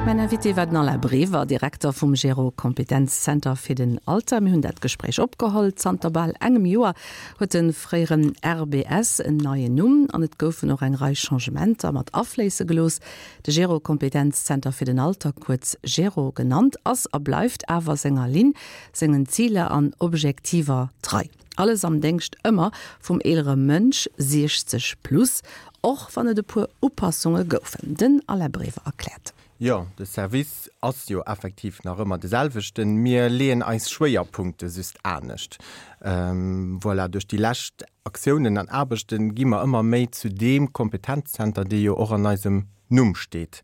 Mäin Invité war den Alain Brever, Direkter vum Gero Kompetenzzenter fir den Alter. Mir hunn dat Gespréich opgeholl. Zanter bal engem Joer huet de fréieren RBS en neien Numm an et goufen och eng Rei Changementer mat afléisse gelooss. De Gero Kompetenzzenter fir den Alter, kuerz Gero genannt, ass a bleift awer senger Linn, sengen Ziler an Objektiver trei. Alles am Déngscht ëmmer vum eelere Mënsch, 60 plus, och wann et e puer Upassunge goufen. Den Alain Brever erkläert. Jo, de Service ass jo effektiv nach ëmmer de selwechten. Mir leeën eis Schwéierpunkte just anescht. Voilà, duerch déi lescht Aktiounen an Aarbechte gi mer ëmmer méi zu deem Kompetenzzenter, dee jo och an eisem Numm steet.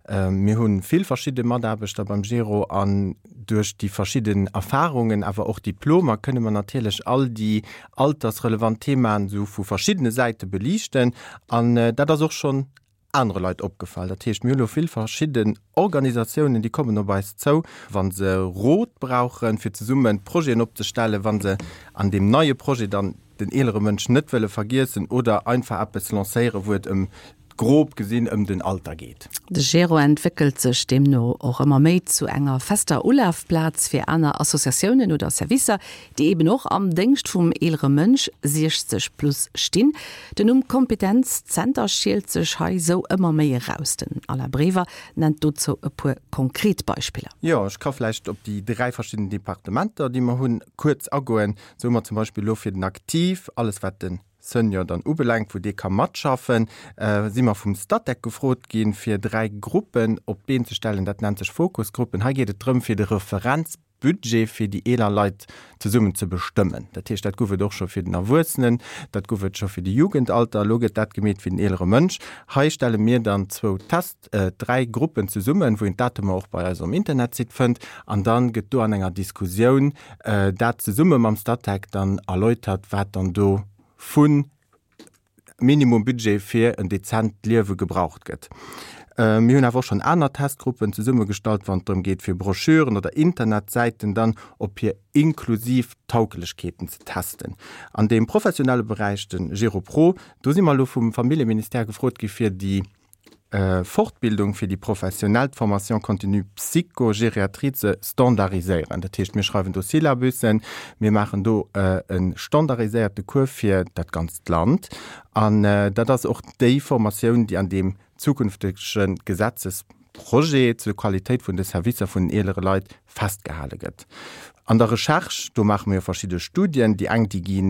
Mir hu vill verschidde Mataarbechter beim Gero an duerch déi verschidden Erfarungen, awer och Diplomer, kënne mer natierlech all déi altersrelevant Themaen esou vu verschiddene Säite beliichten. An dat ass och schonn anere Leit opgefall. Dat heescht, mir hu lo vill verschidden Organisatiounen, déi kommen op eis zou, wa se Rot brauchen, fir zesumme Projeten opzestellen, wa se an deem neie Projet dann den eelere Mënsch net wëlle vergiessen oder einfach eppes lancéieren, wou et ëm grob gesinn ëm den Alter geet. De Gero entwéckelt sech deemno och ëmmer méi zu enger fester Ulafplaz fir aner Associatiounen oder Servicer, déi eben och am Déngscht vum eelere Mënsch, 60 plus, stinn. Den Numm Kompetenzzenter schielt sech hei sou ëmmer méi eraus. Den Alain Brever nennt dozou e puer konkret Beispiller. Jo, ech ka vläicht op déi 3 verschidden Departementer, déi mer hunn, kuerz agoen. Sou hu mer zum Beispill elo fir den Aktiv alles wat de Senior dann ubelaangt, wou dee ka matschaffen, si mer vum Statec gefrot ginn, fir 3 Gruppen op d'Been ze stellen. Dat nennt sech Fokusgruppen. Hei geet et drëm, fir de Referenzbudget fir déi eeler Leit zesummen ze bestëmmen. Dat heescht, dat gouf et och scho fir den Erwuessenen, dat gouf et scho fir de Jugendalter, elo gëtt dat gemeet fir den eelere Mënsch. Hei stelle mir dann zwou Test, 3 Gruppen zesummen, wou een d'Datumer och bei eis um Internetsite fënnt, an dann gëtt do an enger Diskussioun dat zesumme mam Statec dann erläutert, wat dann do vu Minimumbudget fir en dezent Liewe gebraucht gëtt. Mir hunn awer och schonn aner Testgruppen zesummegestallt, wann et drëm geet, fir Broschüren oder Internetsäiten dann op hir inklusiv Tauglechkeeten ze testen. An deem professionelle Beräich, de GeroPro, do si mer elo vum Familljeministère gefrot gi fir déi Fortbildung fir déi professionell, d'Formation continue Psychogériatrie ze standardiséieren. Dat heescht, mir schreiwen do Syllabussen, mir maachen do e standardiséierte Cours fir dat ganzt Land. An dat ass och déi Formatioun, déi an deem zukünftege Gesetzesprojet zur Qualitéit vun de Servicer vun den eelere Leit festgehale gëtt. An der Recherche, do maache mir jo verschidde Studien, déi eng, déi gi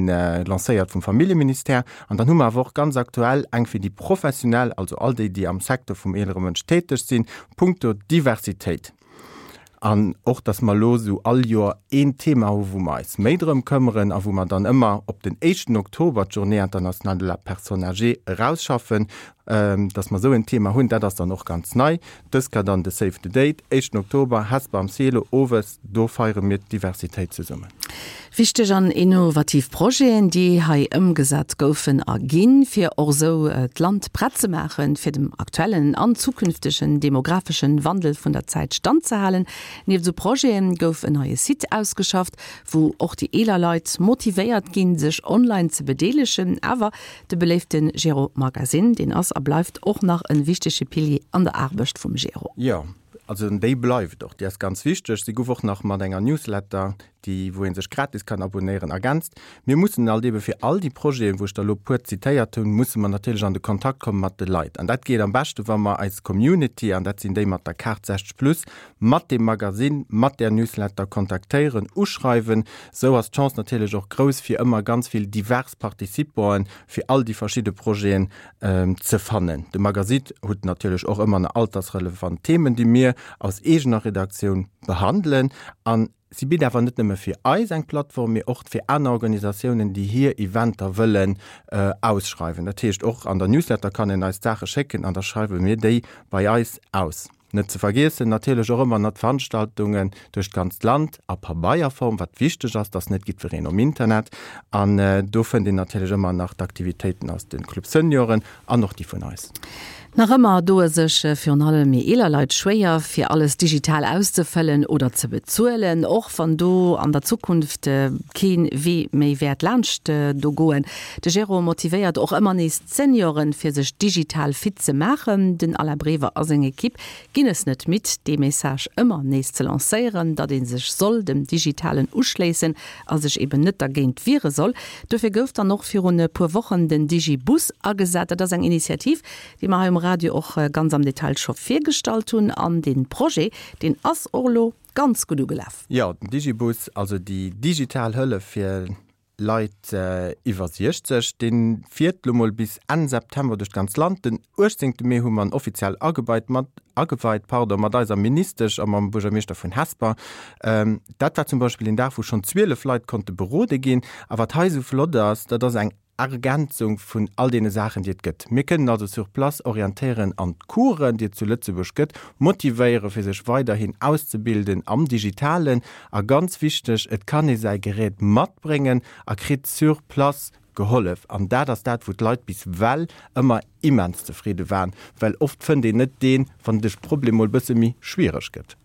lancéiert vum Familljeministère, an dann hu mer awer och ganz aktuell eng fir déi Professionell, also all déi, déi am Secteur vum eelere Mënsch täteg sinn, punkto Diversitéit. An och, dass mer elo esou all Joer een Thema hu wou mer eis méi drëm këmmeren a wou mer dann ëmmer op den éischten Oktober, d'Journée internationale de la personne âgée, erausschaffen, Dass mer esou en Thema hunn, dat ass dann och ganz nei. Dës Kéier dann de Save the Date, éischten Oktober, Hesper am Cielo, owes. Do feiere mir d'Diversitéit zesummen. Wichteg an innovativ Projeten, déi hei ëmgesat goufen a ginn, fir och esou d'Land prett ze maachen, fir dem aktuellen an zukünftegen demografeschen Wandel vun der Zäit standzehalen. Nieft esou Projete gouf en neie Site ausgeschafft, wou och déi eeler Leit motivéiert ginn, sech online ze bedeelegen. Awer De beléifte Gero Magazine, deen ass a bleift och nach en wichtege Pilier an der Aarbecht vum Gero. Jo, also déi bleift och, déi ass ganz wichteg. Si gouf och nach mat enger Newsletter, déi wou ee sech gratis kann abonéieren, ergänzt. Mir mussen alt ebe fir all déi Projeten, wou ech der elo puer zitéiert hunn, musse mer natierlech an de Kontakt komme mat de Leit. An dat geet am beschte wa mer eis Community, an dat sinn déi mat der Kaart 60 plus, mat deem Magasinn, mat där Newsletter kontaktéieren, uschreiwen. Sou ass d'Chance natierlech och grouss, fir ëmmer ganz vill divers Participanten fir all déi verschidde Projeten ze fannen. De Magasit hutt natierlech och ëmmer na altersrelevant Themen, déi mir aus eegener Redaktioun behandelen. An si bitt awer net nëmme fir eis eng Plattform, mee och fir aner Organisatiounen, déi hir Eventer wëllen ausschreiwen. Dat heescht, och an der Newsletter kann een eis d'Saache schécken an da schreiwe mir déi bei eis aus. Net ze vergiessen natierlech och ëmmer nach d'Veranstaltungen duerch d'ganzt Land a Pabeierform, wat wichteg ass, dass net jiddwereen um Internet. An do fënnt een natierlech ëmmer nach d'Aktivitéiten aus de Club Senioren an och déi vun eis. Nach ëmmer doe sech virun allem méi eeler Leit schwéier, fir alles digital auszefëllen oder ze bezuelen, och wann do an der Zukunft kee Wee méi wäert laanscht do goen. De Jérôme motivéiert och ëmmer nees d'Senioren, fir sech digital fit ze maachen. Den Alain Brever a seng Ekipp ginn es net midd, dee Message ëmmer nees ze lancéieren, datt ee sech soll dem Digitalen uschléissen a sech eben net dergéint wiere soll. Dofir gouf dann och virun e puer Wochen den Digibus agesat. Dat ass eng Initiativ, déi mer hei um Radio och ganz am Detail scho virgestallt hunn. An dee Projet, deen ass och elo ganz gutt ugelaf. Jo, den Digibus, also déi digital Hëllef fir Leit iwwer 60, dee fiert elo mol bis Enn September duerch d'ganz Land. Den 18 Mee hu mer en offiziell ageweit mat, ageweit, pardon, mat eiser Ministesch a mam Buergermeeschter vun Hesper. Dat war zum Beispill een Dag, wou schonn 12 Leit konnte berode ginn. A wat hei esou flott ass, dat ass eng Ergänzung vun all deene Saachen, déi et gëtt. Mir kënnen also sur place orientéieren an d'Coursen, déi et zu Lëtzebuerg gëtt, motivéieren, fir sech weiderhin auszebilden am Digitalen. A ganz wichteg, et kann ee säi Gerät matbréngen a kritt sur place gehollef. An dat ass dat, wou d'Leit bis well ëmmer immens zefridde waren, well oft fënnt een net deen, wann de Problem mol bësse méi schwiereg gëtt.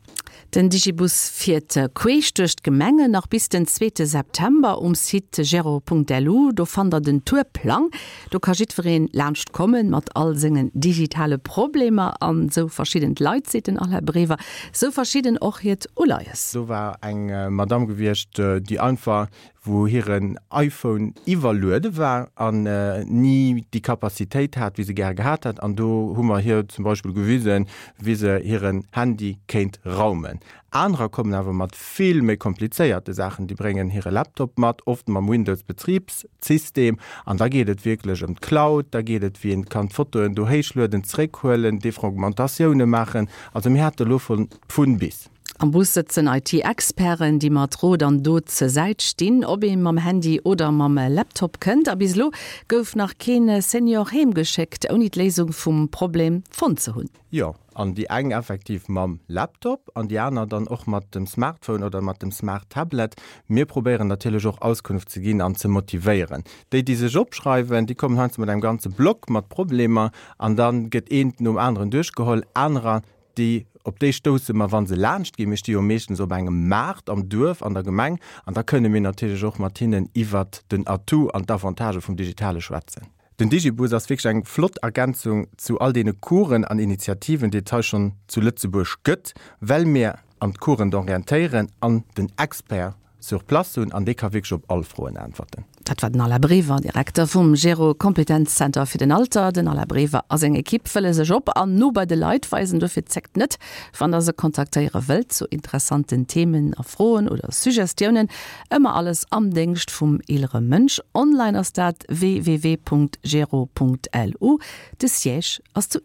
Den Digibus fiert queesch duerch d'Gemengen nach bis den zweete September. Um Site gero.lu, do fannt der den Tourplang. Do ka jiddwereen laanscht kommen mat all sengen digitale Problemer. An esou verschidden d'Leit, seet den Alain Brever, esou verschidden och hiert Uleies. Do war eng Madame gewiescht, déi einfach wou hiren iPhone iwwerluede war an ni déi Capacitéit hat, wéi se gäre gehat hätt. An do hu mer hir zum Beispill gewisen, wéi se hiren Handy kéint raumen. Anerer kommen awer mat vill méi komplizéierte Saachen. Déi bréngen hire Laptop mat, oft mam Windows-Betribssystem. An da geet et wierklech ëm d'Cloud, da geet et, wéi een kann d'Fotoen do héichlueden, zeréckhuelen, Defragmentatioune maachen. Also mir hate lo vun bis. Am Bus sëtzen IT-Experten, déi mat Rot an Dot zur Säit stinn, ob ee mam Handy oder mam Laptop kënnt. A bis elo gouf nach kee Senior heem geschéckt, ouni d'Léisung vum Problem fonnt ze hunn. Jo, an déi eng effektiv mam Laptop an déi aner dann och mat dem Smartphone oder mat dem Smart Tablet. Mir probéieren natierlech och Auskunft ze ginn an ze motivéieren. Déi, déi sech opschreiwen, déi kommen heiansdo mat engem ganze Block mat Problemer an da gëtt eent nom aneren duerchgeholl. Anerer, Déi, op déi stousse mer, wa se laanscht ginn. Mir sti jo meeschtens op engem Maart am Duerf, an der Gemeng, an da kënne mir natierlech och mat hinnen iwwert den Atout an d'Avantagë vum Digitale schwätzen. Den Digibus ass wierklech eng flott Ergänzung zu all deene Coursen an Initiativen, déi et hei schonn zu Lëtzebuerg gëtt, well mir an d'Coursen d'orientéieren an den Expert sur place hunn an dee ka wierklech op all Froen äntwerten. Dat war den Alain Brever, Direkter vum Gero Kompetenzzenter fir den Alter. Den Alain Brever a seng Ekipp wëlle sech op an no bei de Leit weisen. Dofir zéckt net, wann der se kontaktéiere wëllt zu interessanten Themen a Froen oder Suggestiounen. Ëmmer alles am Déngscht vum eelere Mënsch. Online ass dat www.gero.lu. De Siège ass zu.